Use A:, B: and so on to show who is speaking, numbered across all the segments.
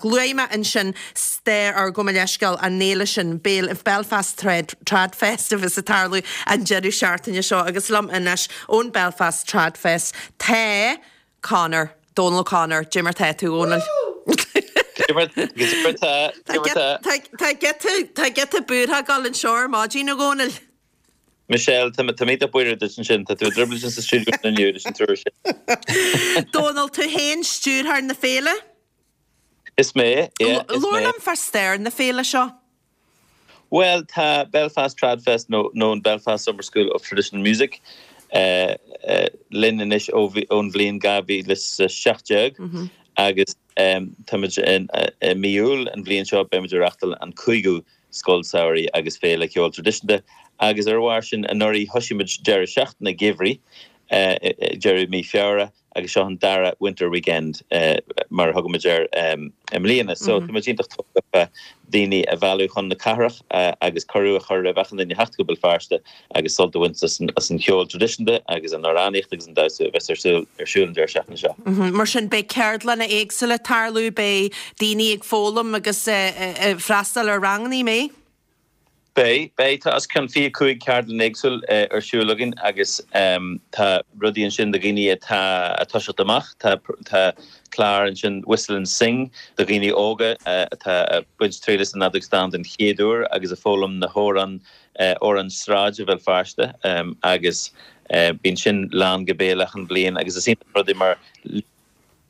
A: Luaigh mé ansin stair ár gabh mo leithscéal an fhéile sin, Belfast Trad Fest a bheas ag tarlú an deireadh seachtaine seo agus liom anois ón Belfast Trad Fest tá Conor, Dónal O'Connor, Cad é mar tá tú, a Dhónaill? Tá giota, giota buartha ag dul anseo ar maidin, a Dhónaill.
B: Michelle, tá mé iontach buíoch duit ansin, tá tú i dtrioblóid sa stiúideo inniu leis an triúr sin.
A: Dónal, tú féin stiúrthóir na féile?
B: Is mé, yeah, is mé.
A: Labhair liom fá stair na féile seo.
B: Bhuel, tá Belfast Trad Fest nó nó an Belfast Summer School of Traditional Music linn anois ó ón bhliain 2017 agus táimid i mí Iúil an bhliain seo beimid ag reáchtáil an cúigiú Scoil Samhraidh agus Féile Ceoil Traidisiúnta agus ar a bharr sin anuraidh thosaigh muid deireadh seachtaine geimhridh deireadh mí Feabhra agus seo an dara Winter Weekend mar a thugaimid air i mbliana. So tá muid iontach tógtha fá daoine a mhealladh chun na cathrach agus cuireadh a chur roimh achan duine theacht go Béal Feirste agus sult a bhaint as an cheol traidisiúnta agus an amhránaíocht agus an damhsa a bheas ar siúl ar siúl an deireadh seachtaine
A: seo. Mar sin beidh ceardlanna éagsúla ag tarlú, beidh daoine ag foghlaim agus ag freastal ar ranganna, an mbeidh?
B: Beidh, beidh. Tá os cionn 25 ceardlann éagsúil ar siúl againn agus tá rudaí ansin do dhaoine atá ag toiseacht amach. Tá, tá clár ansin Whistle and Sing do dhaoine óga atá ag baint triail as an fheadóg stáin den chéad uair agus ag foghlaim na hamhráin, amhráin sráide Bhéal Feirste agus bíonn sin lán go béal achan bhliain agus is iontach an rud é mar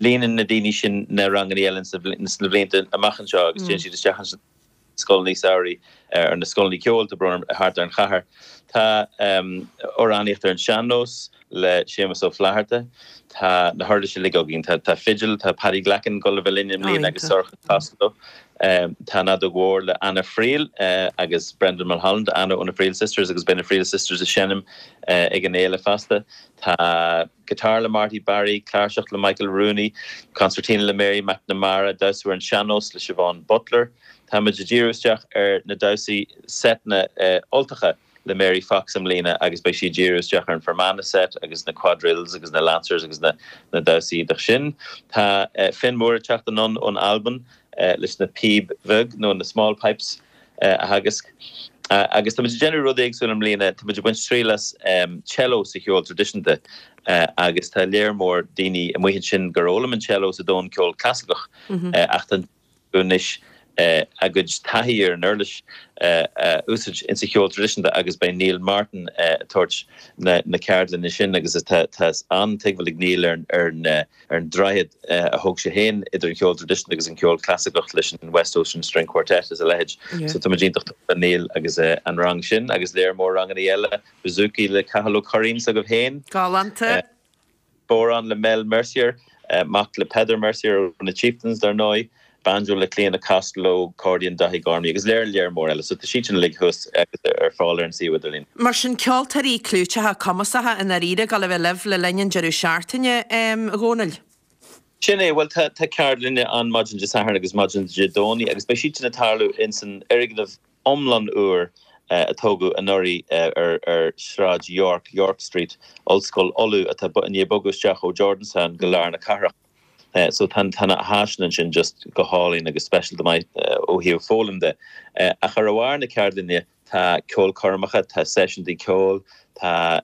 B: líonann na daoine sin na ranganna eile sna blianta amach anseo agus téann siad isteach ansin. scoileanna samhraidh, ar na scoileanna ceoil, tá brón orm, thart ar an chathair. Tá amhránaíocht ar an sean-nós le Séamus Ó Flatharta. Tá na huirlisí uilig againn. Tá fidil, tá Paddy Glackin ag dul a bheith linn i mbliana agus Sorcha Costello. Tá an fheadóg mhór le Anna Friel agus Brendan Mulholland, Anna ó na Friel Sisters agus beidh na Friel Sisters ag seinm ag an fhéile fosta. Tá guitar le Marty Barry, cláirseach le Michael Rooney, concertina le Mary McNamara, damhsa ar an sean-nós le Siobhán Butler. Táimid ag díriú isteach ar na damhsaí seiteanna Ultacha le Mary Fox i mbliana agus beidh sí ag díriú isteach ar an Fermanagh set agus na quadrilles agus na lancers agus na damhsaí iontach sin. Tá Finn Moore ag teacht anonn ón Albain leis na píb bheag nó na small pipes a theagasc. Agus táimid ag déanamh rud éagsúil i mbliana, táimid ag baint triail as cello sa cheol traidisiúnta agus tá léar mór daoine amuigh ansin gur fhoghlaim an cello sa domhan ceol clasaiceach ach tá anois a gcuid taithí ar an uirlis a úsáid insa cheol traidisiúnta agus beidh Neil Martin ag tabhairt na ceardlainne sin agus tá an-tuigbheáil ag Neil ar an ar an droichead a thóg sé féin idir an ceol traidisiúnta agus an ceol clasaiceach leis an West Ocean String Quartet is a leithéid. So tá muid iontach tógtha le Neil agus an rang sin agus léar mór ranganna eile, bouzouki le Cathal Ó Curraoin s'agaibh féin.
A: Galánta.
B: Bodhrán le Mel Mercier, mac le Peadar Mercier ó na Chieftains dar ndóigh. Banjo le Clíona Costello, Accordion Daithí Gormley agus léar léar mór eile. So tá siad sin uilig thuas agus ar fáil ar an suíomh idirlín.
A: Mar sin, ceoltóirí clúiteacha cumasacha i ndáiríre ag dul a bheith libh le linn an deireadh seachtaine, a Dhónaill?
B: Sin é, bhuel tá ceardlanna ann maidin Dé Sathairn agus maidin Dé Domhnaigh agus beidh siad sin ag tarlú ins an fhoirgneamh iomlán úr a tógadh anuraidh ar Shráid York, York Street, Ollscoil Uladh atá i ndiaidh bogadh isteach ó Jordanstown go lár na cathrach. So tá na háiseanna ansin just go hálainn agus speisialta maith ó thaobh foghlaim de. Ach ar a bharr na ceardlainne tá ceolchoirmeacha, tá seisiúntaí ceoil, tá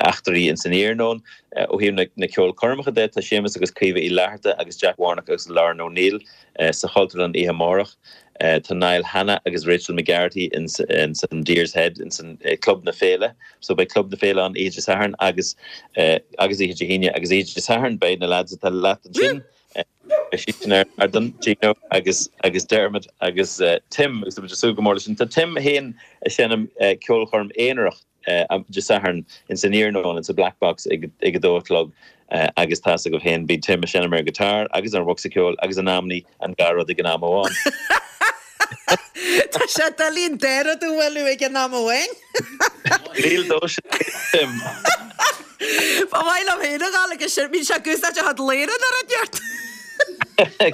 B: eachtraí ins an iarnóin. Ó thaobh na ceolchoirmeacha de tá Séamus agus Caoimhe Uí Fhlatharta agus Jack Warnock agus Lauren O'Neill sa Chultúrlann oíche amárach. Tá Niall Hanna agus Rachel McGarrity ins an Deer's Head ins an Club na Féile. So beidh Club na Féile ann oíche Dé Sathairn agus agus oíche Dé hAoine agus oíche Dé Sathairn beidh na lads atá leat ansin, beidh siad sin ar an ardán, Gino agus agus Dermot agus Tim agus tá muid ag súil go mór leis sin. Tá Tim féin ag seinm ceolchoirm aonarach Dé Sathairn ins an iarnóin ins an Black Box ag ag a dó a chlog agus tá's agaibh féin bíonn Tim ag seinm ar an guitar agus ar an bhocsa ceoil agus in amannaí an dhá rud ag an am amháin.
A: Tá sé doiligh an dá rud a bhualadh ag an am amháin.
B: Níl dó sin, Tim.
A: Ba mhaith liom féin a ghabháil agus sin, bíonn sé ag úsáid a chuid léire nuair a neart.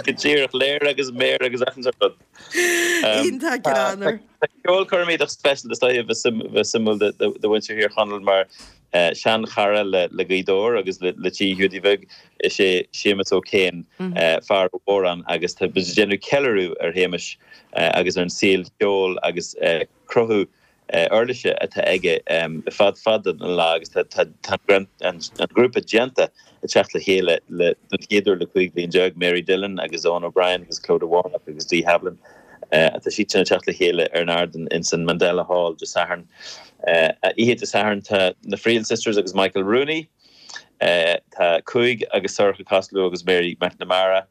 B: Go díreach, léire agus méar agus achan sórt rud.
A: Iontach greannmhar.
B: Tá ceolchoirm iontach speisialta is dóiche a bheith suimiúil do mhuintir Thír Chonaill mar. Sean-chara le Gaoth Dobhair agus le Tigh Hiúdaí Bhig is ea Séamus O'Kane, fear ó Mhóráin agus tá muid ag déanamh ceiliúradh ar Shéamus agus ar an saol ceoil agus cruthú uirlise atá aige le fada fada an lá agus tá an grúpa déanta ag teacht le chéile don chéad uair le 15 bliain, Mary Dillon agus Eoin O'Brien agus Clodagh Warnock agus Dee Havlin. Tá siad sin ag teacht le chéile ar an ardán ins an Mandela Hall Dé Sathairn. Oíche Dé Sathairn tá na Friel Sisters agus Michael Rooney, tá Cúig agus Sorcha Costello agus Mary McNamara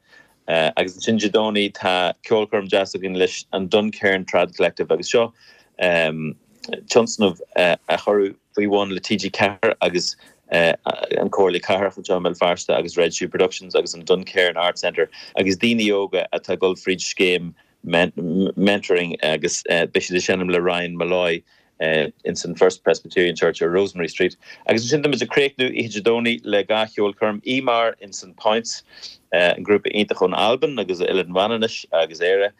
B: Agus ansin Dé Domhnaigh tá ceolchoirm deas againn leis an Duncairn Trad Collective agus seo tionscnamh a cuireadh faoi bhun le TG4 agus an Comhairle Cathrach anseo i mBéal Feirste agus Red Shoe Productions agus an Duncairn Arts Centre agus daoine óga atá ag dul fríd scéim mentoring agus beidh siad ag seinm le Ryan Molloy ins an First Presbyterian Church ar Rosemary Street. Agus ansin táimid ag críochnú oíche Dé Domhnaigh le dhá cheolchoirm, Íomar ins an Points, an grúpa iontach ón Albain agus Oileán Mhanannais agus Éire,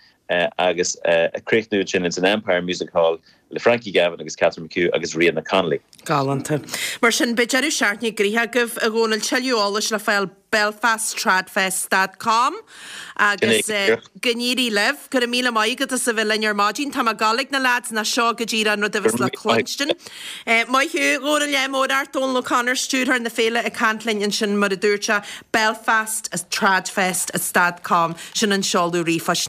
B: agus ag críochnú ansin ins an Empire Music Hall le Frankie Gavin agus Catherine McHugh agus Ríona Connolly.
A: Galánta. Mar sin, beidh deireadh seachtaine gnoitheach agaibh, a Dhónaill, tuilleadh eolais le fáil belfasttradfest dot com agus go n-éirí libh. Go raibh míle maith agat as a bheith linn ar maidin. Tá mé ag gabháil ag na leaids nó seo go díreach an rud a bheas le cluinstin. Maith thú, a Dhónaill, ádh mór ort, Dónal O'Connor, stiúrthóir na féile ag caint linn ansin mar a dúirt sé, belfasttradfest dot com, sin an seoladh ríomhphoist.